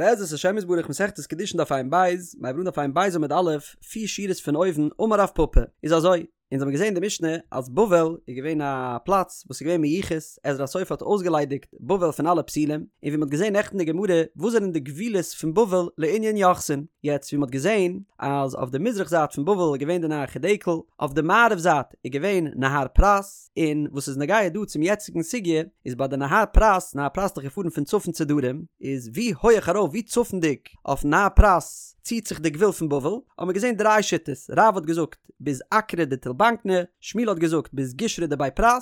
בעזרת השם יתברך מסכת קידושין דף ע"ב, מיר הייבן אן דף ע"ב עמוד א', פיר שורות פון אויבן, אמר רב פפא, איז אזוי, אונז האבן געזען אין די משנה אז בבל איז געווען א פלאץ וואס איז געווען מיוחס, עזרא הסופר האט אויסגעליידיגט בבל פון אלע פסולים, און ווי מ'האט געזען נעכטן אין די גמרא, וואס זענען די גבולות פון בבל לענין יוחסין, יעצט ווי מ'האט געזען אז אויף די מזרח זייט פון בבל איז געווען די נהר חדקל, אויף די מערב זייט איז געווען נהר פרת, און וואס איז נוגע דא צום יעצטיגן סוגיא, איז ביי די נהר פרת, נהר פרת איז דאך געפארן פון צפון צו דרום, איז ווי הויעך ארויף ווי צפונדיג אויפן נהר פרת ציט זיך די גבול פון בבל, האבן מיר געזען דריי שיטות, רב האט געזאגט ביז אקרא דתולבקני, שמואל האט געזאגט ביז גישרא דבי פרת,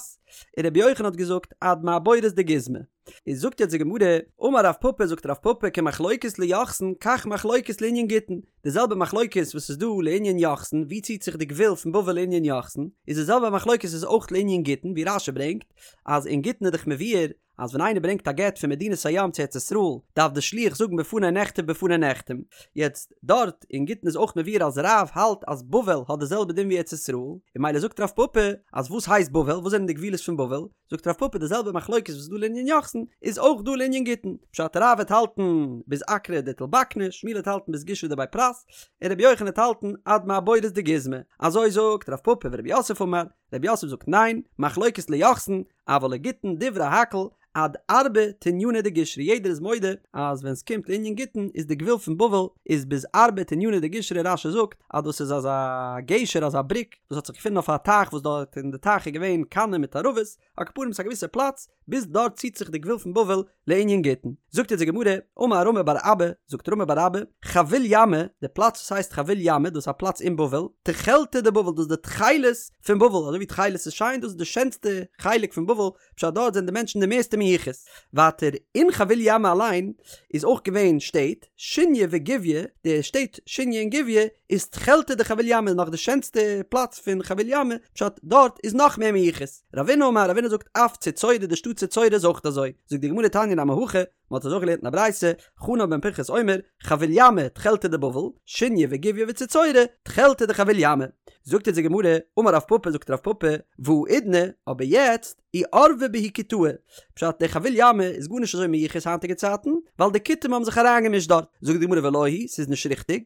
און רבי יוחנן האט געזאגט עד מעבורת דגיזמא. איז זאגט יעצט די גמרא, אמר רב פפא זאגט רב פפא כמחלוקת ליוחסין כך מחלוקת לענין גיטין, די זעלבע מחלוקת וואס איז דא לענין יוחסין ווי ציט זיך די גבול פון בבל לענין יוחסין, איז די זעלבע מחלוקת איז אויך לענין גיטין ווי רש"י ברענגט אז אין גיטין איז דאך מבואר אז ווען איינער ברענגט א גט פון מדינת הים צו ארץ ישראל דארף די שליח זאגן בפני נכתב בפני נחתם, יעצט דארט אין גיטין איז אויך מבואר אז רב האלט אז בבל האט די זעלבע דין ווי ארץ ישראל, און ממילא זאגט רב פפא אז וואס הייסט בבל וואס זענען די גבולות פון בבל, זאגט רב פפא די זעלבע מחלוקת וואס איז דא לענין יוחסין איז אויך דא לענין גיטין, פשט רב וועט האלטן ביז אקרא דתולבקני, שמואל וועט האלטן ביז גישרא דבי פרת, און רבי יוחנן וועט האלטן עד מעבורת דגיזמא, אזוי זאגט רב פפא ורב יוסף אמר, רב יוסף זאגט ניין, מחלוקת ליוחסין, אבל לגיטין דברי הכל עד ארבא תניינא דגישרא יעדער איז מודה אז ווען סקומט לענין גיטין איז די גבול פון בבל איז ביז ארבא תניינא דגישרא רש"י זאגט אז דאס איז אזא גשר אזא בריק וואס האט זיך געפונען אויף א טייך וואס דארט אין די טייך איז געווען קנים מיט ערבות, על כל פנים ס'איז א געוויסע פלאץ, ביז דארט ציט זיך די גבול פון בבל לענין גיטין. זאגט אונז די גמרא, אמר רמי בר אבא, זאגט רמי בר אבא, חביל ימא, די פלאץ וואס הייסט חביל ימא, דאס איז א פלאץ אין בבל, תכלתא דבבל, דאס איז די תכלת פון בבל, אזוי ווי תכלת איז שיין, דאס איז די שענסטע חלק פון בבל, פשט דארט זענען די מענטשן די מערסטע מיוחס. ווייטער, אין חביל ימא אליין איז אויך געווען שטעט, שוניא וגויא, די שטעט שוניא און גויא איז תכלתא דחביל ימא נאך די שענסטע פלאץ פון חביל ימא, פשט דארט איז נאך מער מיוחס. רבינא אמר, רבינא זאגט אף צוצורא די שטאט צוצורא איז אויך אזוי. זאגט די גמרא תניא נמי הכי, מען האט אזוי געלערנט אין א ברייתא, חנן בן פנחס אומר, חביל ימא תכלתא דבבל, שוניא וגויא וצוצורא תכלתא דחביל ימא. זאגט אונז די גמרא, אמר רב פפא זאגט רב פפא, והאידנא, אבער יעצט, איערבו בהו כותאי, פשט דער חביל ימא איז גארנישט אזוי מיוחס היינטיגע צייטן, ווייל די כותים האבן זיך אריינגעמישט דארט. זאגט די גמרא ולא היא, ס'איז נישט ריכטיג,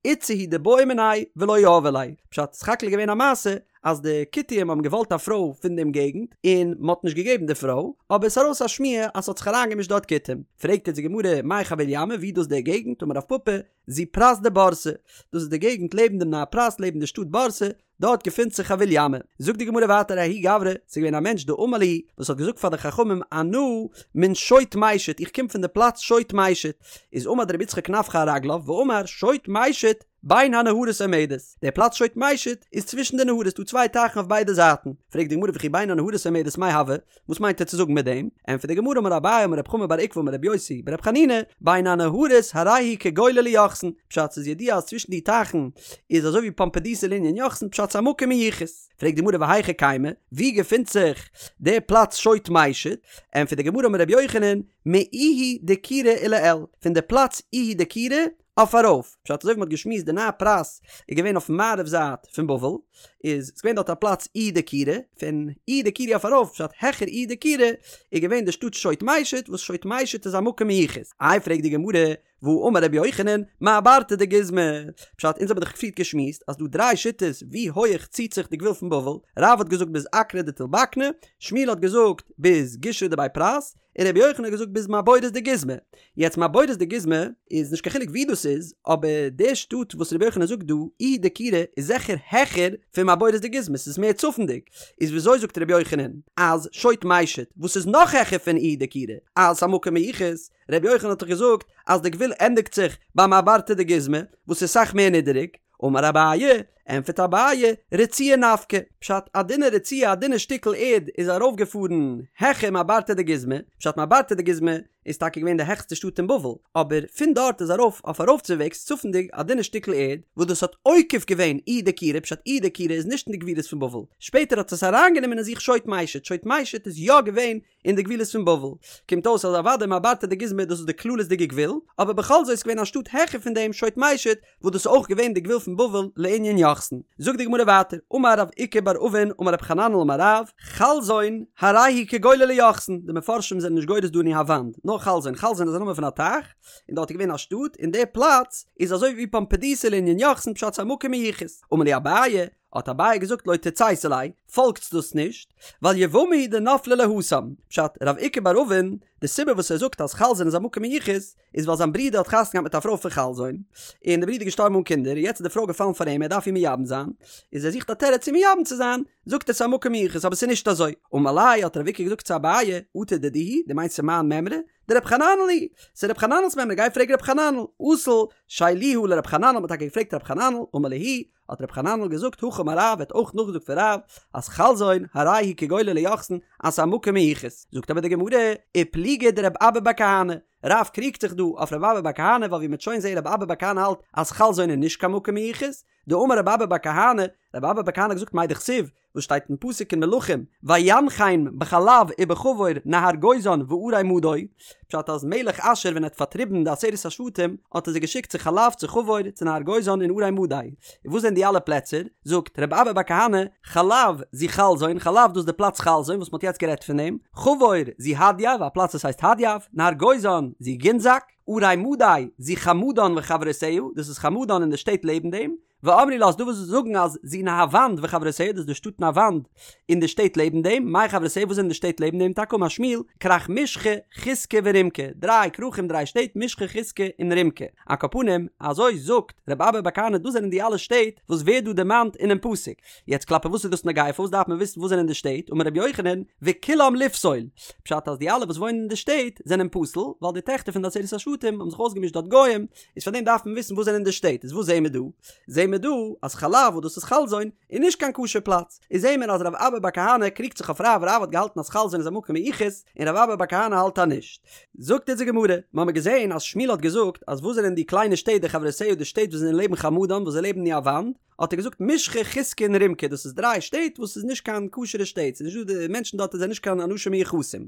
איתתא הוא דבעו מיניה ולא יהבו ליה, פשט סך הכל איז געווען א מעשה אז די כותים האבן געוואלט א פרוי פון דעם געגנט און מען האט נישט געגעבן די פרוי, אבער עס איז ארויס א שמועה אז ס'האט זיך אריינגעמישט דארט כותים. פרעגט יעצט די גמרא מאי חביל ימא ווי איז דאס דער געגנט? אמר רב פפא, זו פרת דבורסי, דאס איז די געגנט לעבן דעם נהר פרת לעבן די שטאט בורסי, דארט געפינט זיך חביל ימא. זאגט די גמרא ווייטער ההוא גברא, ס'איז געווען א מענטש דאמר להו, וואס האט געזאגט פאר די חכמים אנא מן שוט מישוט, איך קום פון די פלאץ שוט מישוט, איז עמד רבי יצחק נפחא על רגליו ואמר שוט מישוט בין הנהרות עומדת, דער פלאץ שוט מישוט איז צווישן די נהרות, ס'דא צוויי טייכן אויף ביידע זייטן, פרעגט די גמרא וכי בין הנהרות עומדת מאי הוי, וואס מיינט ער צו זאגן מיט דעם? ענטפערט די גמרא אמר אביי אמר רב חמא בר עוקבא אמר רבי יוסי ברבי חנינא, בין הנהרות הרי הוא כגולה ליוחסין, פשט ס'איז ידוע אז צווישן די טייכן איז אזוי ווי פומבדיתא לענין יוחסין פשט ס'איז א מקום מיוחס. פרעגט די גמרא והיכא קיימא, ווי געפינט זיך די פלאץ שוט מישוט? ענטפערט די גמרא אמר רבי יוחנן, מאיהי דקירא ולעיל, פון די פלאץ איהי דקירא אויף ארויף, פשט אזוי ווי מ'האט געשמועסט די נהר פרת איז געווען אויפן מערב זייט פון בבל, איז ס'געווען דארט א פלאץ איהי דקירא, פון איהי דקירא אויף ארויף, פשט העכער איהי דקירא, איז געווען די שטאט שוט מישוט, וואס שוט מישוט איז א מקום מיוחס. איי פרעגט די גמרא, והאמר רבי יוחנן, מעברתא דגיזמא, פשט אונז האבן דאך פריערט געשמועסט אז דא דריי שיטות ווי הויעך ציט זיך די גבול פון בבל, רב האט געזאגט ביז אקרא דתולבקני, שמואל האט געזאגט ביז גישרא דבי פרת, און רבי יוחנן האט געזאגט ביז מעבורת דגיזמא. יעצט מעבורת דגיזמא איז נישט קיין חילוק ווי דאס איז, אבער די שטאט וואס רבי יוחנן זאגט דא, איהי דקירא, איז זיכער העכער פון מעבורת דגיזמא, ס'איז מער צפונדיג. איז וויאזוי זאגט רבי יוחנן אז שוט מישוט, וואס איז נאך העכער פון איהי דקירא, אז ס'א מקום מיוחס? רבי יוחנן האט דאך געזאגט אז די גבול ענדיגט זיך ביי מעברתא דגיזמא, וואס איז סאך מער נידעריג. אמר אביי, ענטפערט אביי, רצועה נפקא, פשט א דינע רצועה א דינע שטיקל ערד איז ארויפגעפארן העכער מעברתא דגיזמא, פשט מעברתא דגיזמא איז טאקע געווען די העכסטע שטאט אין בבל, אבער פון דארט איז ארויף אויף ארויפצווועגס צפונדיג א דינע שטיקל ערד וואס דאס האט עוקף געווען איהי דקירא, פשט איהי דקירא איז נישט אין די גבולות פון בבל, שפעטער האט עס אריינגענומען אין זיך שוט מישוט, שוט מישוט איז יא געווען אין די גבולות פון בבל. קומט אויס אז אוודאי מעברתא דגיזמא דאס איז די כללית'דיגע גבול, אבער בכל זאת איז געווען א שטאט העכער פון דעם שוט מישוט וואס דאס איז אויך געווען די גבול פון בבל לענין יוחסין. זאגט די גמרא ווייטער, אמר רב איקא בר אבין אמר רב חננאל אמר רב, חלזון, הרי הוא כגולה ליוחסין, די מפרשים זענען נישט גורס דא ניהוונד, נאר. נאר חלזון, חלזון איז א נאמען פון א טייך, און דארט איז געווען א שטאט, און די פלאץ איז אזוי ווי פומבדיתא לענין יוחסין פשט ס'איז א מקום מיוחס. אמר להו אביי, האט אביי געזאגט לא תצייתו ליה, פאלגטס דאס נישט, ווייל יבמה הוא דנפלה ליה התם, פשט, רב איקא בר אבין, די סיבה וואס ער זאגט אז חלזון איז א מקום מיוחס, איז ווייל זיין ברודער האט חתונה געהאט מיט א פרוי פון חלזון, און די ברודער איז געשטארבן אן קינדער, און יעצט איז די פרוי געפאלן פאר אים, ער דארף איר מייבם זיין, איז ער זוכט א תירוץ צו מייבם צו זיין, זאגט ער ס'איז א מקום מיוחס, אבער ס'איז נישט אזוי. אמר ליה האט רב איקא געזאגט צו אביי, אטו דידי היא, דו מיינסט ס'איז מיין מימרא? דרב חננאל היא, ס'איז רב חננאל'ס מימרא, גיי פרעג רב חננאל. אזל שיילוה לרב חננאל, מ'האט טאקע געפרעגט רב חננאל, אמר להו, האט רב חננאל געזאגט הכי אמר רב, ער האט אויך נאכגעזאגט פון רב, אז חלזון הרי הוא כגולה ליוחסין, אז ס'איז א מקום מיוחס. זאגט אבער די גמרא, ופליגא דרב אבא בר כהנא, רב קריגט זיך דא אויף רב אבא בר כהנא ווייל ווי מ'וועט שוין זעהן רב אבא בר כהנא האלט אז חלזון איז נישט קיין מקום מיוחס, דאמר רב אבא בר כהנא, רב אבא בר כהנא האט געזאגט מאי דכתיב, וואס שטייט אין פסוק אין מלכים, וינחם בחלב ובחבור נהר גוזן וערי מדי, פשט אז מלך אשור ווען ער האט פארטריבן די עשרת השבטים האט ער זיי געשיקט צו חלב צו חבור צו נהר גוזן און ערי מדי, און וואס זענען די אלע פלעצער? זאגט רב אבא בר כהנא, חלב זו חלזון, חלב דאס איז די פלאץ חלזון וואס מען האט יעצט גערעדט פון דעם, חבור זו הדייב, א פלאץ וואס הייסט הדייב, נהר גוזן זו גינזק, ערי מדי זו חמדן וחברותיה, דאס איז חמדן און די שטעט לעבן דעם, ואמרי לה ס'איז דא וואס זאגן אז זו נהוונד וחברותיה דאס איז די שטאט נהוונד און די שטעט לעבן דעם, מאי חברותיה וואס זענען די שטעט לעבן דעם טאקע אמר שמואל, כרך משחא, חוסקי ורומקי, דריי כרכים דריי שטעט משחא חוסקי און רומקי, על כל פנים אזוי זאגט רבי אבא בר כהנא דאס זענען די אלע שטעט וואס ווערט דא דערמאנט אינעם פסוק, יעצט כלפי וואס איז דאס נוגע פארוואס דארף מען וויסן וואס זענען די שטעט אמר רבי יוחנן וכולם לפסול פשט אז די אלע וואס וואוינען אין די שטעט זענען פסול ווייל די טעכטער פון די עשרת השבטים האבן זיך אויסגעמישט דארט גוים איז פאר דעם דארף מען וויסן וואס זענען די שטעט, איז וואס זעהן מיר דא? זעהן מיר דא אז חלב וואס דאס איז חלזון איז נישט קיין כשר פלאץ, איז זעהן מיר אז רב אבא בר כהנא קריגט זיך אויף רב, רב האט געהאלטן אז חלזון איז א מקום מיוחס און רב אבא בר כהנא האלט אז נישט. זאגט אונז די גמרא, מיר האבן געזעהן אז שמואל האט געזאגט אז וואס זענען די קליינע שטעט די חברותיה די שטעט וואס זענען לעבן חמדן וואס זיי לעבן נהוונד, האט ער געזאגט משחא חוסקי און רומקי דאס איז דריי שטעט וואס איז נישט קיין כשר'ע שטעט ס'איז נישט דא די מענטשן דארט זענען נישט קיין אנשים מיוחסים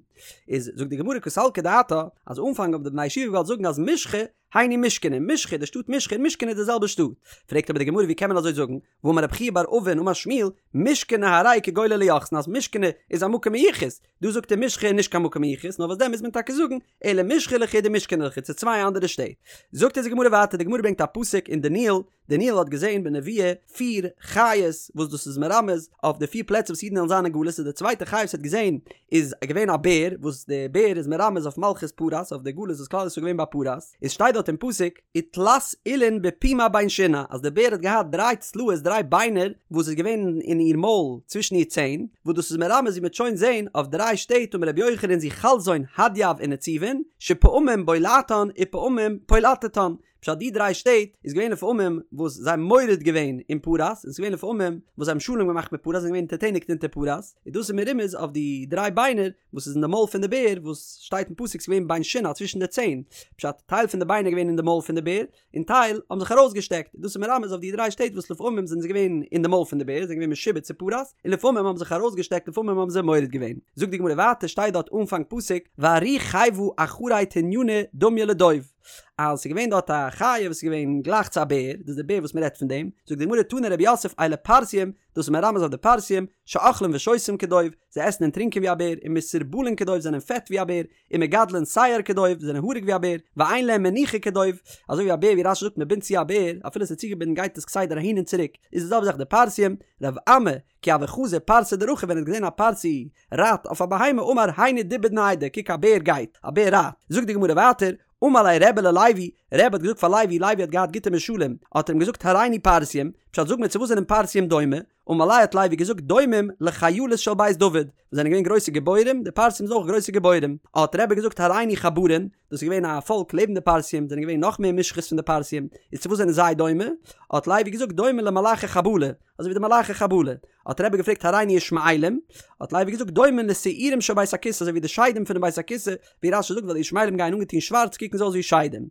איז זאגט די גמרא קא סלקא דעתך אז אנפאנג האבן די בני ישיבה געוואלט זאגן אז משחא היינו מושכני משחא די שטאט משחא און מושכני איז די זעלבע שטאט פרעגט אבער די גמרא ווי קען מען אזוי זאגן והאמר רב חייא בר אבין אמר שמואל מושכני הרי כגולה ליוחסין אז מושכני איז א מקום מיוחס דא זאגט ער משחא איז נישט קיין מקום מיוחס נאר וואס דען מוז מען טאקע זאגן אלא משחא לחוד ומושכני לחוד ס'איז צוויי אנדערע שטעט זאגט אונז די גמרא ווייטער די גמרא ברענגט א פסוק אין דניאל דניאל האט געזען בנבואה פיר חיות וואס דאס איז מרמז אויף די פיר פלעצער וואס אידן וועלן זיין אין גלות איז די צווייטע חיה וואס ער האט געזען איז געווען א בער וואס די בער איז מרמז אויף מלכות פרס אויף די גלות וואס כלל ישראל איז געווען ביי פרס איז שטייט דארט אין פסוק ותלת עילין בפומה בין שינה אז די בער האט געהאט דריי צלעות דריי ביינער וואס איז געווען אין איר מויל צווישן איר ציין וואס דאס איז מרמז ווי מ'וועט שוין זען אויף דריי שטעט אמר רבי יוחנן זו חלזון הדייב ונציבין שפעמים בולעתן ופעמים פולטתן פשט די דריי שטעט איז געווען לפעמים וואס זיי האבן מורד געווען אין פרס און ס'איז געווען לפעמים וואס זיי האבן שלום געמאכט מיט פרס זענען געווען אונטערטעניגט אונטער פרס און דאס איז מרומז אויף די דריי ביינער וואס איז אין די מויל פון די בער וואס שטייט אין פסוק ס'איז געווען בין שיניה צווישן די ציין פשט טייל פון די ביינער געווען אין די מויל פון די בער און טייל האבן זיך ארויסגעשטעקט דאס איז מרמז אויף די דריי שטעט וואס לפעמים זענען זיי געווען אין די מויל פון די בער זענען געווען משועבד צו פרס און לפעמים האבן זיך ארויסגעשטעקט לפעמים האבן זיי מורד געווען זאגט די גמרא ווייטער שטייט דארט אנפאנג פסוק וארי חיוה אחרי תנינא דמיא לדוב. אז ס'איז געווען דארט א חיה וואס איז געווען גלייך צו א בער, דאס איז די בער וואס מ'רעדט פון דעם, זאגט די גמרא תני רב יוסף אלו פרסיים, דאס איז מרמז אויף די פרסיים, שאוכלים ושותים כדוב, זיי עסן און טרינקען ווי א בער, ומסורבלין כדוב, זענען פעט ווי א בער, ומגדלין שער כדוב, זענען האריג ווי א בער, ואין להם מנוחה כדוב, אזוי ווי א בער ווי רש"י זאגט מ'בינדט צו א בער, אפילו ס'איז צוגעבינדן גייט עס כסדר אהין און צוריק, איז די זעלבע זאך די פרסיים, רב אמי, כי הוה חזי פרסא דרכיב ווען ער האט געזען א פרסי רייט אויף א בהמה אמר היינו דובא דניידא קוק א בער גייט, א בער רייט, זאגט די גמרא ווייטער, אמר ליה רבי ללוי, רבי האט געזאגט פאר לוי, לוי האט געהאט גוטע משלים, האט ער אים געזאגט הראני פרסיים, פשט זאג מיר צו וואס זענען פרסיים דומה, אמר ליה האט לוי געזאגט דומים לחיילות של בית דוד, וואס זענען געווען גרויסע גיבורים, די פרסיים זענען אויך גרויסע גיבורים, האט רבי געזאגט הראני חברין, דאס איז געווען א פאלק לעבן די פרסיים, זענען געווען נאך מער מושחת פון די פרסיים, איז צו וואס זענען זיי דומה? האט לוי געזאגט דומה למלאכי חבלה, אזוי ווי די מלאכי חבלה. האט רבי געפרעגט הראני ישמעאלים, האט לוי געזאגט דומה לשעירים של בית הכסא, אזוי ווי די שדים פונעם בית הכסא, ווי רש"י זאגט ווייל די ישמעאלים גייען אנגעטון שווארץ קוקן זיי אויס ווי שדים.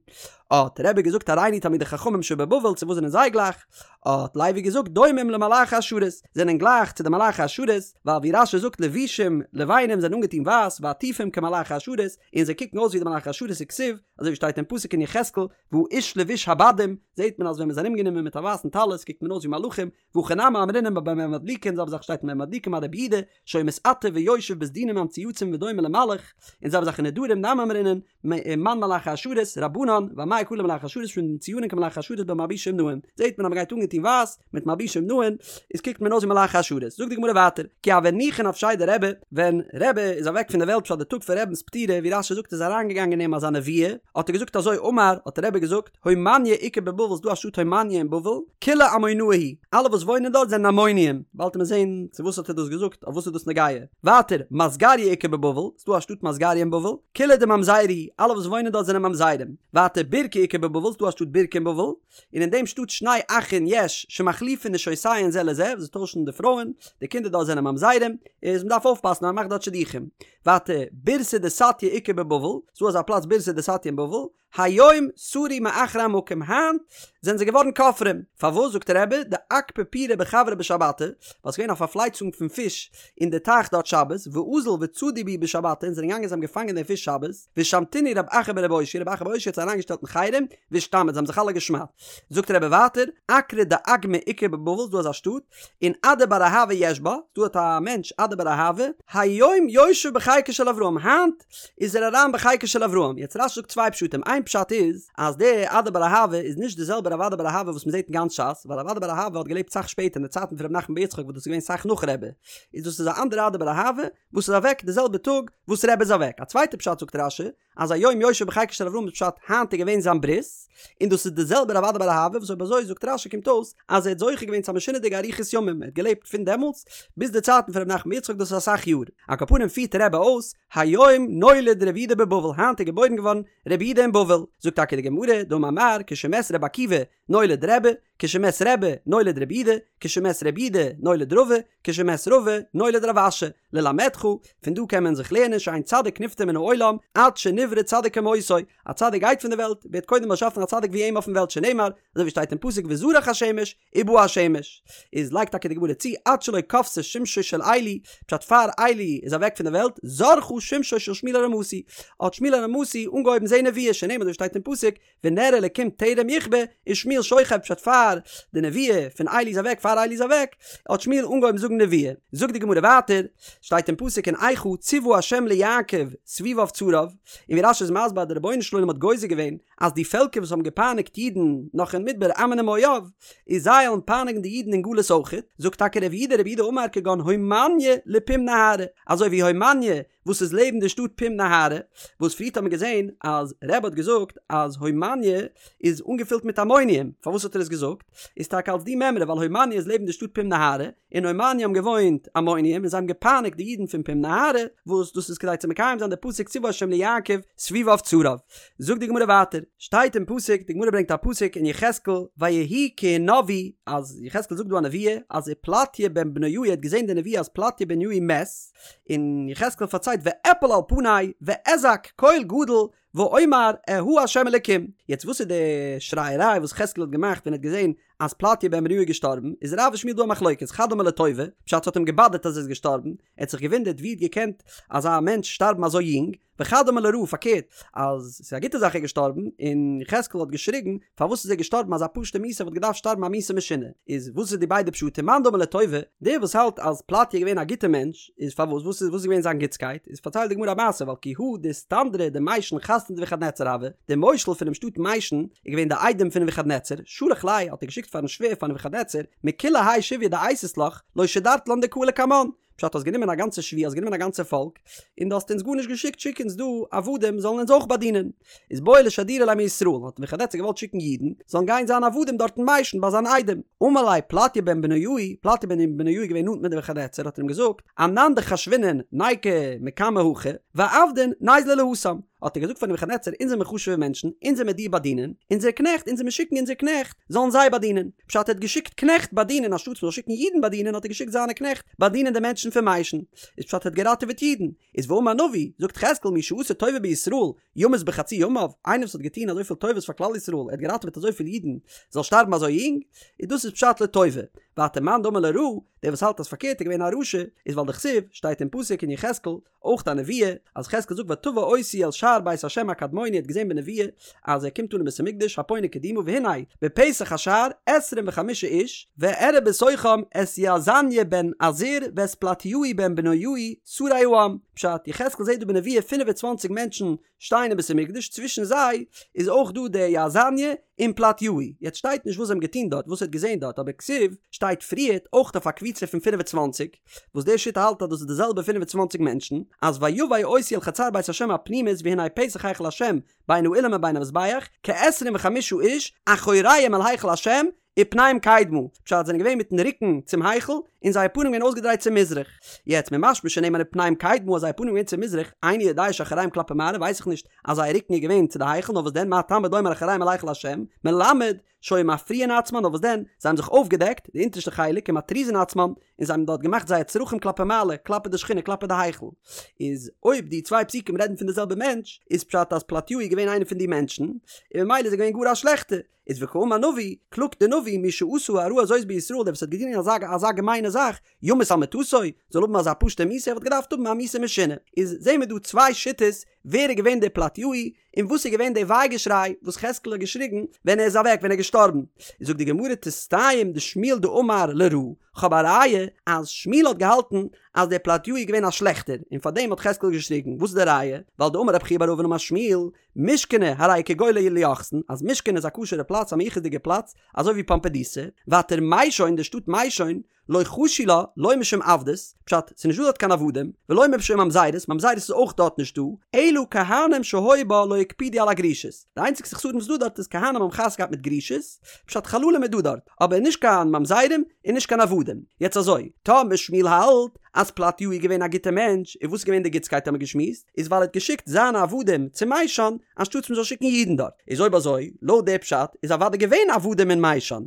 האט רבי געזאגט הראינו תלמידי חכמים שבבבל צו וואס זענען זיי גלייך? האט לוי געזאגט דומים למלאכי השרת, זענען גלייך צו די מלאכי השרת, ווייל ווי רש"י זאגט לבושים לבנים זענען אנגעטון ווייס ועטופים כמלאכי השרת, און זיי קוקן אויס ווי די מלאכי השרת וכתיב, אזוי ווי שטייט אין פסוק אין יחזקאל, והאיש לבוש הבדים, זעט מען אז ווען מען איז ארומגענומען מיט א ווייסן טלית קוקט מען אויס ווי מלאכים, והכי נמי אמרינן במה מדליקין זעלבע זאך שטייט אין במה מדליקין ביי רבי יהודה, שהיה מתעטף ויושב בסדינים המצוייצים ודומה למלאך, און זעלבע זאך אין נדרים נמי אמרינן, מאן מלאכי השרת, רבנן, ואמאי קרו מלאכי השרת משום דמצויינין כמלאכי השרת במלבושים נאים, זעט מען אז מען גייט אנגעטון ווייס, מיט מלבושים נאים, איז קוקט מען אויס ווי מלאכי השרת. זאגט די גמרא ווייטער, כי הוה ניחא נפשיה דרבי, ווען רבי איז אוועק פון די וועלט פשט די טאג פון רבינ'ס פטירה, ווי רש"י זאגט איז אריינגעגאנגען אין אים אזא נבואה, האט ער געזאגט אזוי אמר, האט רבי געזאגט, הומניא איכא בבבל ס'דא א שטאט הומניא אין בבל, כולהו עמונאי הוא, אלע וואס וואוינען דארט זענען עמוניים, באלד וועט מען זעהן צו וואס האט ער דאס געזאגט, אויף וואס איז דאס נוגע. ווייטער, מסגריא איכא בבבל, ס'דא א שטאט מסגריא אין בבל, כולהו דממזרי הוא, אלע וואס וואוינען דארט זענען ממזרים. ווייטער, בירקא איכא בבבל, ס'דא א שטאט בירקא אין בבל, און אין דעם שטאט שני אחין יש שמחליפין נשותיהן זה לזה, וואס זיי טוישן די פרויען, די קינדער דארט זענען ממזרים, איז מ'דארף אויפפאסן אז מ'מאכט דארט שידוכים. ווייטער, בירתא דסטיא איכא בבבל, ס'דא אזא פלאץ בירתא דסטיא אין בבל, היום סרו מאחרי המקום, היינט זענען זיי געווארן כופרים, פארוואס זאגט רבי, דאכפי פירי בחברא בשבתא, ווייל ס'איז געווען א פארפלייצונג פון פיש אין די טייך דארט שבת, ואזול וצדו בהו בשבתא, און זענען געגאנגען זיי האבן געפאנגען די פיש שבת, ושמתינהו רב אחא ברבי אושעיא, רב אחא בר אושעיא האט זיי אריינגעשטעלט אין חרם, ואשתמיט, זיי האבן זיך אלע געשמדט. זאגט רבי ווייטער, אקרא דאגמא איכא בבבל, ס'דא אזא שטאט, און אדא בר אהבה יש בה, דא האט א מענטש אדא בר אהבה, היום יושב בחיקו של אברהם, היינט איז ער אריין בחיקו של אברהם, יעצט רש"י זאגט צוויי פשטים, איין פשט איז אז דער אדא בר אהבה איז נישט די זעלבע רב אדא בר אהבה וואס מען זעט אין גאנץ ש"ס, ווייל רב אדא בר אהבה האט געלעבט סאך שפעטער אין די צייטן פון ר' נחמן בר יצחק וואס דאס איז געווען סאך נאך רבי, איז דאס איז א אנדערע אדא בר אהבה וואס איז אוועק די זעלבע טאג וואס רבי איז אוועק, א צווייטע פשט זאגט רש"י אז היום יושב בחיקו של אברהם איז פשט היינט איז געווען זיין ברית, און דאס איז די זעלבע רב אדא בר אהבה וואס אויב אזוי זאגט רש"י קומט אויס אז ער האט זוכה געווען צו א משונה'דיגע אריכות ימים ער האט געלעבט פון דעמאלטס ביז די צייטן פון ר' נחמן בר יצחק דאס איז אסאך יאר, על כל פנים פירט רבי אויס היום נולד רבי יהודה בבבל היינט איז געבוירן געווארן רבי יהודה אין בבל, זאגט טאקע די גמרא דאמר מר כשמת רבי עקיבא נולד רבי, כשמת רבי נולד רבי יהודה, כשמת רבי יהודה נולד רבא, כשמת רבא נולד רב אשי, ללמדך, פון דא קען מען זיך לערנען שאין צדיק נפטר מן העולם עד שנברא צדיק כמותו, א צדיק גייט פון די וועלט, ווערט קודם באשאפן א צדיק ווי אים אויפן וועלט שנאמר, אזוי ווי שטייט אין פסוק וזרח השמש ובא השמש, איז לייגט טאקע די גמרא צו עד שלא כבתה שמשו של עלי, פשט פאר עלי איז אוועק פון די וועלט, זרחה שמשו של שמואל הרמתי, האט שמואל הרמתי אנגעהויבן זעהן נבואה, שנאמר אזוי ווי שטייט אין פסוק ונר אלקים טרם יכבה ושמואל שוכב פשט פאר די נבואה פון עלי איז אוועק פאר עלי איז אוועק האט שמואל אנגעהויבן זאגן נבואה זאגט די גמרא ווייטער שטייט אין פסוק אין איכה צוה ה' ליעקב סביביו צריו און ווי רש"י איז מסביר אז די רבונו של עולם האט גוזר געווען אז די פעלקער וואס האבן געפייניגט אידן נאך אין מדבר עמון ומואב איז זיי וועלן פייניגן די אידן אין גלות אויכעט זאגט טאקע רב יהודה רב יהודה אמר כגון הומניא לפום נהרא אזוי ווי הומניא וואס איז לעבן די שטאט פום נהרא, וואס פריערט האט מען געזען אז רבי האט געזאגט אז הומניא איז אנגעפילט מיט עמוניים, פארוואס האט ער עס געזאגט? איז טאקע אלס די מימרא ווייל הומניא איז לעבן די שטאט פום נהרא, אין הומניא האבן געוואוינט עמוניים און זיי האבן געפייניגט די אידן פון פום נהרא, וואס דאס איז כדי צו מקיים זיין די פסוק צוה ה' ליעקב סביביו צריו. זאגט די גמרא ווייטער, שטייט אין פסוק, די גמרא ברענגט א פסוק אין יחזקאל, ויהי כי הנבאו, אז יחזקאל זאגט דא א נבואה, אז ופלטיה בן בניהו האט געזען די נבואה אז פלטיה בן בניהו מת, און יחזקאל פארציילט ואפול על פני ואזעק קול גדול ואומר אהה ה' אלקים, יעצט וואס איז די שרייעריי וואס יחזקאל האט געמאכט ווען ער האט געזען אז פלטיה בן בניהו איז געשטארבן, איז רב ושמואל דא א מחלוקת, חד אמר לטובה, פשט ס'האט אים געבאדערט אז ער איז געשטארבן, ער האט זיך געוואונדערט ווי האט געקענט אזא מענטש שטארבן אזוי יונג, וחד אמר לרעה פארקערט אז ס'איז א גוטע זאך ער איז געשטארבן, און יחזקאל האט געשריגן פארוואס איז ער געשטארבן אזא פשוטע מיתה ער וואלט געדארפט שטארבן א מיתה משונה, איז וואס איז די ביידע פשטים מאן דאמר לטובה, דער וואס האלט אז פלטיה איז געווען א גוטע מענטש, איז פארוואס וואס איז וואס איז געווען זיין גוטסקייט, איז פארציילט די גמרא א מעשה ווייל כי הא דאיסטנדרא דמיישן חתניה דנבוכדנצר הוה, דער מושל פונעם שטאט מיישן איז געווען די איידעם פון נבוכדנצר, שלח ליה האט ער געשיקט פארן שווער פאר נבוכדנצר, מכולי האי שביא דאייתית לך, לא שדרת לן דקאי לקמן, פשט האסט גענומען א גאנצע שביה האסט גענומען א גאנצע פאלק און דו האסט אונז גארנישט געשיקט שיק אונז דא עבדים זאלן אונז אויך באדינען איז בעי לשדורי ליה מישראל האט נבוכדנצר געוואלט שיקן אידן זאלן גיין זיין עבדים דארט אין מיישן ביי זיין איידעם אמר ליה פלטיה בן בניהו פלטיה בן בניהו איז געווען נאנט מיט נבוכדנצר האט ער אים געזאגט אנן דחשבינן ניקו מקמי הכא ועבדין ניזלו להתם האט ער געזאגט פאר נבוכדנצר אונז זעמיר חשוב'ע מענטשן אונז וועמיר דיר באדינען אונזער קנעכט אונז וועמיר שיקן אונזער קנעכט זאלן זיי באדינען פשט ער האט געשיקט קנעכט באדינען אנשטאטס מ'זאל שיקן אידן באדינען האט ער געשיקט זיינע קנעכט באדינען די מענטשן. מענטשן פון מישן, איז פשט ער האט געראטעוועט אידן, איז ואמר נביא, זאגט יחזקאל מי שעשה טובה בישראל, ימות בחצי ימיו, איינער וואס האט געטון אזויפיל טובות פאר כלל ישראל, ער האט געראטעוועט אזויפיל אידן, זאל שטארבן אזוי יונג, איז דאס איז פשט לטובה. ווייטער מאן דאמר לרעה, דער וואס האלט אז פארקערט איז געווען א רשע, איז ווייל דכתיב, שטייט אין פסוק אין יחזקאל, אויך א נבואה, אז יחזקאל זאגט ותבא אותי אל שער בית ה' הקדמוני האט געזען בנבואה אז ער קומט אן אין בית המקדש הפונה קדימה והנה בפתח השער עשרים וחמישה איש ואראה בתוכם את יאזניה בן עזור ואת פלטיהו בן בניהו שרי העם פשט יחזקאל זעט דא בנבואה 25 מענטשן שטייען אין בית המקדש צווישן זיי איז אויך דא דער יאזניה און פלטיהו יעצט שטייט נישט וואס זיי האבן געטון דארט וואס ער האט געזען דארט אבער כתיב שטייט פריערט אויך אויף א קבוצה פון 25 וואס דער שיטה האלט אז דאס איז די זעלבע 25 מענטשן אז ויבא אותי אל חצר בית השם הפנימית והנה פתח היכל השם בין האולם ובין המזבח כעשרים וחמישה איש אחוריהם אל היכל השם ופניהם קדמה, פשט זענען געווען מיטן רוקן צום היכל, און זייער פנים געווען אויסגעדרייט צו מזרח. יעצט ממשמע שנאמר ופניהם קדמה אז זייער פנים געווען צו מזרח, איני יודע שאחוריהם כלפי מעלה ווייס איך נישט אז זייער רוקן איז געווען צו די היכל נאר וואס דען מה תלמוד לומר אחוריהם אל היכל השם, מלמד שהיו מפריעין עצמן נאר וואס דען זיי האבן זיך אויפגעדעקט די אונטערשטע חלק ומטריזין עצמן און זיי האבן דארט געמאכט זייער צרכים כלפי מעלה כלפי די שכינה כלפי די היכל. איז אויב די צוויי פסוקים רעדן פון די זעלבע מענטש איז פשט אז פלטיהו איז געווען איינער פון די מענטשן און ממילא איז ער געווען גאר א שלעכטער. איז וקאמר נביא, קלאגט דער נביא, מי שעשה הרעה הזאת בישראל, דער וואס האט געטון אזא אזא געמיינע זאך, ימות על מיטתו, זאל האבן אזא פשוטע מיתה, ער וואלט געדארפט האבן א מיתה משונה. איז זעהן מיר דא צוויי שיטות, ווער איז געווען דער פלטיהו, און וואס איז געווען דער וויי געשריי וואס יחזקאל האט געשריגן ווען ער איז אוועק, ווען ער איז געשטארבן. איז זאגט די גמרא תסתיים דשמואל דאמר לרעה, כ'האב א ראיה אז שמואל האט געהאלטן אז דער פלטיהו איז געווען א שלעכטער, און פארדעם האט יחזקאל געשריגן, וואס איז די ראיה? ווייל דאמר רב חייא בר אבין אמר שמואל, מושכני הרי כגולה ליוחסין, אז מושכנא איז א כשר'ע פלאץ א מיוחס'דיגע פלאץ, אזוי ווי פומבדיתא, ווייטער מישון די שטאט מישון, לא חשו לה, לא משום עבדות, פשט, ס'איז נישטא דארט קיין עבדים, ולא משום ממזרות, ממזרות איז אויך דארט נישטא, אלא כהנים שהיו בה לא הקפידו על הגרושות, די איינציגסטע חסרון וואס איז דא דארט איז כהנים האבן חתונה געהאט מיט גרושות, פשט חללים איז דא דארט, אבער נישט קיין ממזרים און נישט קיין עבדים. יעצט אזוי, טאמער שמואל האלט אז פלטיהו איז געווען א גוטער מענטש, און וואס איז געווען די גוטסקייט האמיר געשמועסט, איז ווייל ער האט געשיקט זיינע עבדים צו מישן, אנשטאטס מ'זאל שיקן אידן דארט. איז אויב אזוי, לויט די פשט, איז אוודאי געווען עבדים אין מישן.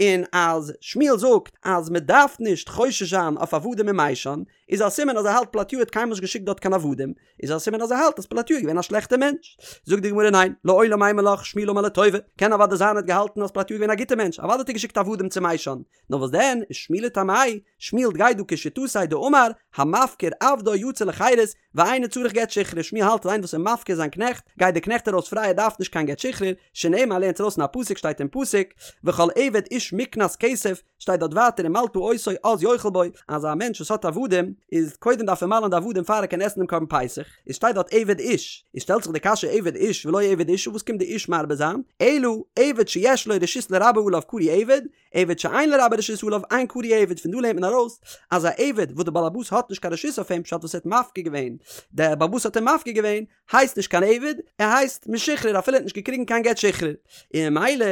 און אז שמואל זאגט אז מ'דארף נישט חושש זיין אויף עבדים אין מישן, איז א סימן אז ער האלט פלטיהו האט קיינמאל נישט געשיקט דארט קיין עבדים, איז א סימן אז ער האלט אז פלטיהו איז געווען א שלעכטער מענטש. זאגט די גמרא ניין, לעולם אימא לך שמואל אמר לטובה, קען אוודאי זיין ער האט געהאלטן אז פלטיהו איז געווען א גוטער מענטש, אוודאי האט ער געשיקט עבדים צו מישן, נאר וואס דען, שמואל לטעמיה, שמואל גייט דא כשיטתו דאמר, המפקיר עבדו יצא לחירות, ואינו צריך גט שחרור, שמואל האלט אז איינער וואס איז מפקיר זיין קנעכט, גייט דער קנעכט ארויס פריי ער דארף נישט קיין גט שחרור, שנאמר לערנט ארויס אין א פסוק שטייט אין פסוק, וכל עבד איש מקנת כסף, שטייט דארט ווייטער ומלתה אותו אז יאכל בו, אז א מענטש וואס האט עבדים, איז קודם דארף ער מל'ן די עבדים פאר ער קען עסן דעם קרבן פסח, איז שטייט דארט עבד איש, איז שטעלט זיך די קשיא עבד איש ולא עבד אשה וואס קומט די איש מרבה זיין, אלא עבד שיש לו רשות לרבו עליו קרוי עבד, עבד שאין לרבו רשות עליו אין קרוי עבד, פון דא לערנט מען ארויס אז א עבד וואס די בעל הבית האט נישט קיין רשות אויף אים פשט וואס ער האט מפקיר געווען, דער בעל הבית האט אים מפקיר געווען, הייסט נישט קיין עבד, ער הייסט משוחרר אפילו ער האט נישט געקריגן קיין גט שחרור. און ממילא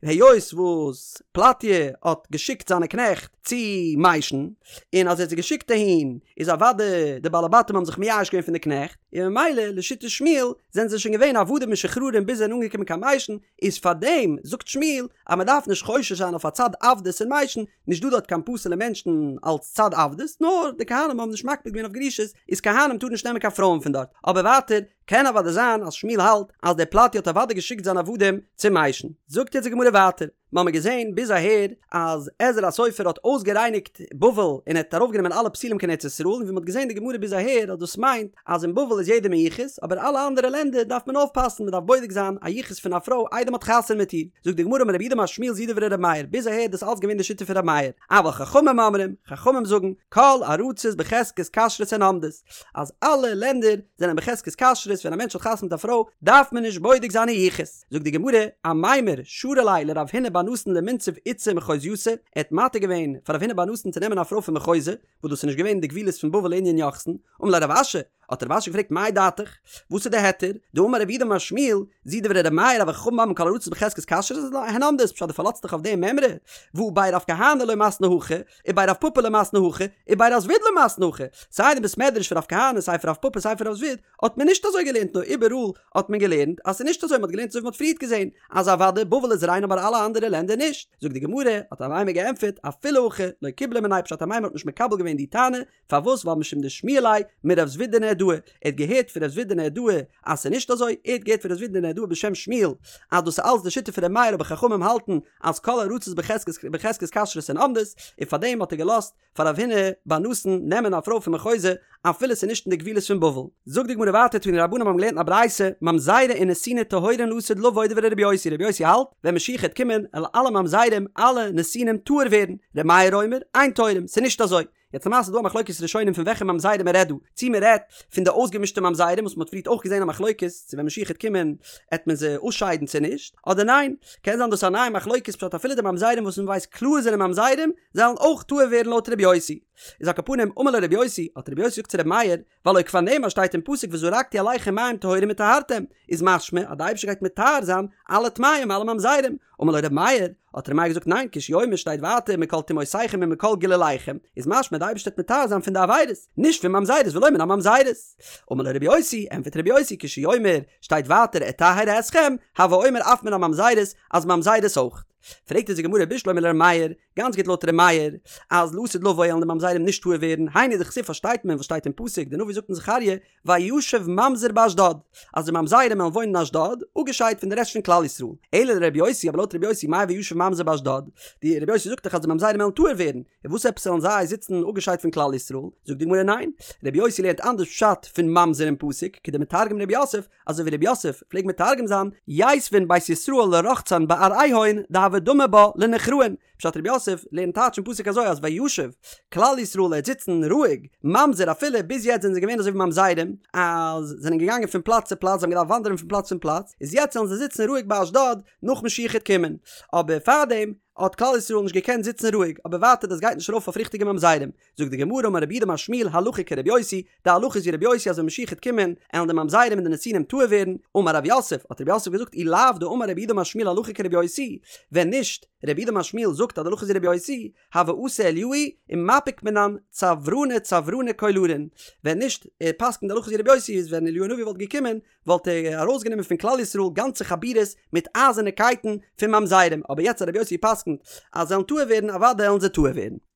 היות וואס פלטיה האט געשיקט זיינע קנעכט צו מישן, און אז ער האט זיי געשיקט אהין איז אוודאי די בעלי בתים האבן זיך מייאש געווען פון די קנעכט, און ממילא לשיטת שמואל זענען זיי שוין געווען עבדים משוחררים ביז זיי זענען אנגעקומען קיין מישן, איז פארדעם זאגט שמואל אז מען דארף נישט חושש זיין אויף א צד עבדות אין מישן, נישט דא דארט קיין פסול'ע מענטשן אלס צד עבדות, נאר די כהנים האבן נישט מקפיד געווען אויף גרושות, איז כהנים טארן נישט נעמען קיין פרויען פון דארט, אבער ווייטער קען אוודאי זיין אז שמואל האלט אז דער פלטי האט אוודאי געשיקט זיינע עבדים צו מישן. זאגט יעצט די גמרא ווייטער, מ'האמיר געזען ביז אהער אז עזרא הסופר האט אויסגערייניגט בבל און ער האט ארויפגענומען אלע פסולים קיין ארץ ישראל, און ווי מ'האט געזען אין די גמרא ביז אהער אז דאס מיינט אז אין בבל איז יעדער מיוחס, אבער אלע אנדערע לענדער דארף מען אויפפאסן, מ'דארף בודק זיין א יחוס פון א פרוי איידער מ'האט חתונה מיט איר. זאגט די גמרא אמר רב יהודה אמר שמואל זו דברי ר' מאיר, ביז אהער דאס אלץ געווען די שיטה פון ר' מאיר, אבל חכמים אומרים, חכמים זאגן, כל ארצות בחזקת כשרות הן עומדות, אז אלע לענדער זענען בחזקת כשרות, ווען א מענטש האט חתונה מיט א פרוי דארף מען נישט בודק זיין איר יחוס. זאגט די גמרא, אמימר שרא ליה לרב הונא בר נתן למינצב איתתא מחוזייתא, ער האט מתיר געווען פאר רב הונא בר נתן צו נעמען א פרוי פון מחוזא, וואס דאס איז נישט געווען אין די גבולות פון בבל לענין יוחסין, אמר ליה רב אשי, האט רב אשי געפרעגט מאי דעתיך? וואס איז די היתר? דאמר רב יהודה אמר שמואל, זו דברי ר' מאיר אבל חכמים אומרים כל הארצות בחזקת כשרות הן עומדות, פשט דו פארלאזט דיך אויף די מימרא? והא בי רב כהנא לא מתנו הכי, ובי רב פפא לא מתנו הכי, ובי רב זביד לא מתנו הכי, סיי אין בית מדרש פון רב כהנא סיי פון רב פפא סיי פון רב זביד האט מען נישט אזוי געלערנט נאר איבעראל האט מען געלערנט אז ס'איז נישט אזוי מ'האט געלערנט אזוי ווי מ'האט פריערט געזען אז אוודאי בבל איז ריין אבער אלע אנדערע לענדער נישט, זאגט די גמרא, האט אמימר געענטפערט, אפילו הכי לא קיבלה מיניה פשט אמימר האט נישט מקבל געווען די טענה, פארוואס ווייל משום דשמיע ליה מרב זביד דנהרדעא, ער האט געהערט פון רב זביד דנהרדעא אז ס'איז נישט אזוי, ער האט געהערט פון רב זביד דנהרדעא בשם שמואל אז דאס איז אלץ די שיטה פון ר' מאיר אבער חכמים האלטן אז כל הארצות בחזקת כשרות הן עומדות, און פארדעם האט ער געלאזט פאר רב הונא בר נתן נעמען א פרוי פון מחוזא אפילו ס'איז נישט אין די גבולות פון בבל. זאגט די גמרא ווייטער תנו רבנן האבן געלערנט אין א ברייתא, ממזרי ונתיני טהורין לעתיד לבוא דברי רבי יוסי, רבי יוסי האלט, ווען משיח העט קומען, וועלן אלע ממזרים, אלע נתינים טהור ווערן, ר' מאיר אומר, אין טהורים, ס'איז נישט אזוי. יעצט למעשה איז דא א מחלוקת ראשונים פון וועלכע ממזרים מען רעדט דא, צו מען רעדט פון די אויסגעמישטע ממזרים וואס מען האט פריערט אויך געזען א מחלוקת צו ווען משיח העט קומען העט מען זיי אויסשיידן צו נישט, אדער ניין, קען זיין דאס איז א נייע מחלוקת פשט אפילו די ממזרים וואס מען ווייסט קלאר זענען ממזרים זאלן אויך טהור ווערן לויט ר' יוסי. איז על כל פנים אמר לו ר' יוסי, האט ר' יוסי געזאגט צו ר' מאיר, והלא כבר נאמר שטייט אין פסוק וזרקתי עליכם מים טהורים וטהרתם, איז משמע אז די אייבערשטער גייט מטהר זיין אלע טמאים אלע ממזרים, אמר לו ר' מאיר, האט ר' מאיר געזאגט ניין כשהוא אומר שטייט ווייטער מכל טומאותיכם ומכל גלוליכם, איז משמע די אייבערשטער וועט מטהר זיין פון די עבירות, נישט פון ממזרות ולא מן הממזרות. אמר לו ר' יוסי, ענטפערט ר' יוסי כשהוא אומר שטייט ווייטער אטהר אתכם, הוי אומר אף מן הממזרות אז ממזרות אויך. פרעגט אונז די גמרא בשלמא לר' מאיר, גאנץ גוט לויט ר' מאיר, אז לעתיד לבוא וועלן די ממזרים נישט טהור ווערן, היינו דכתיב פארשטייט מען וואס שטייט אין פסוק, די נביא זאגט אין זכריה, וישב ממזר באשדוד, אז די ממזרים וועלן וואוינען אין אשדוד, אפגעשיידט פון די רעשט פון כלל ישראל. אלא לר' יוסי, אבער לויט ר' יוסי, מאי וישב ממזר באשדוד? די ר' יוסי זאגט דאך אז די ממזרים וועלן טהור ווערן, און וואס עפעס זאלן זיי זיצן אפגעשיידט פון כלל ישראל? זאגט די גמרא ניין, ר' יוסי לערנט אנדערש פשט פון ממזר אין פסוק, כדמתרגם ר' יוסף, אזוי ווי ר' יוסף פלעגט מתרגם זיין, ייתבון בית ישראל לרחצן בארעהון דהוה דמי בה לנוכראין, פשט ר' יוסף לערנט טייטש אין פסוק אזוי אז וישב כלל ישראל העט זיצן רואיג, ממזר אפילו ביז יעצט זענען זיי געווען אזוי ווי ממזרים אז זענען געגאנגען פון פלאץ צו פלאץ זיי האבן געדארפט וואנדערן פון פלאץ צום פלאץ, איז יעצט זאלן זיי זיצן רואיג ביי אשדוד נאך משיח העט קומען, אבער פארדעם האט כלל ישראל נישט געקענט זיצן רואיג, אבער ווייטער דאס גייט נישט ארויף אויף ריכטיגע ממזרים, זאגט די גמרא אמר רב יהודה אמר שמואל הלכה כרבי יוסי, די הלכה איז ווי רבי יוסי אז ווען משיח העט קומען עלן די ממזרים און די נתינים טהור ווערן, אמר רב יוסף, האט רב יוסף געזאגט אי לאו דאמר רב יהודה אמר שמואל הלכה כרבי יוסי, ווען נישט רב יהודה אמר שמואל זאגט אז די הלכה איז ווי רבי יוסי, הוה אתי אליהו ומפיק מינן צוורני צוורני קולרין, ווען נישט ער פסק'נט די הלכה איז ווי רבי יוסי איז ווען אליהו הנביא וואלט געקומען וואלט ער ארויסגענומען פון כלל ישראל גאנצע חבורות מיט אייזערנע קייטן פון ממזרים, אבער יעצט אז רבי יוסי פסק'נט אז זיי וועלן טהור ווערן אוודאי וועלן זיי טהור ווערן.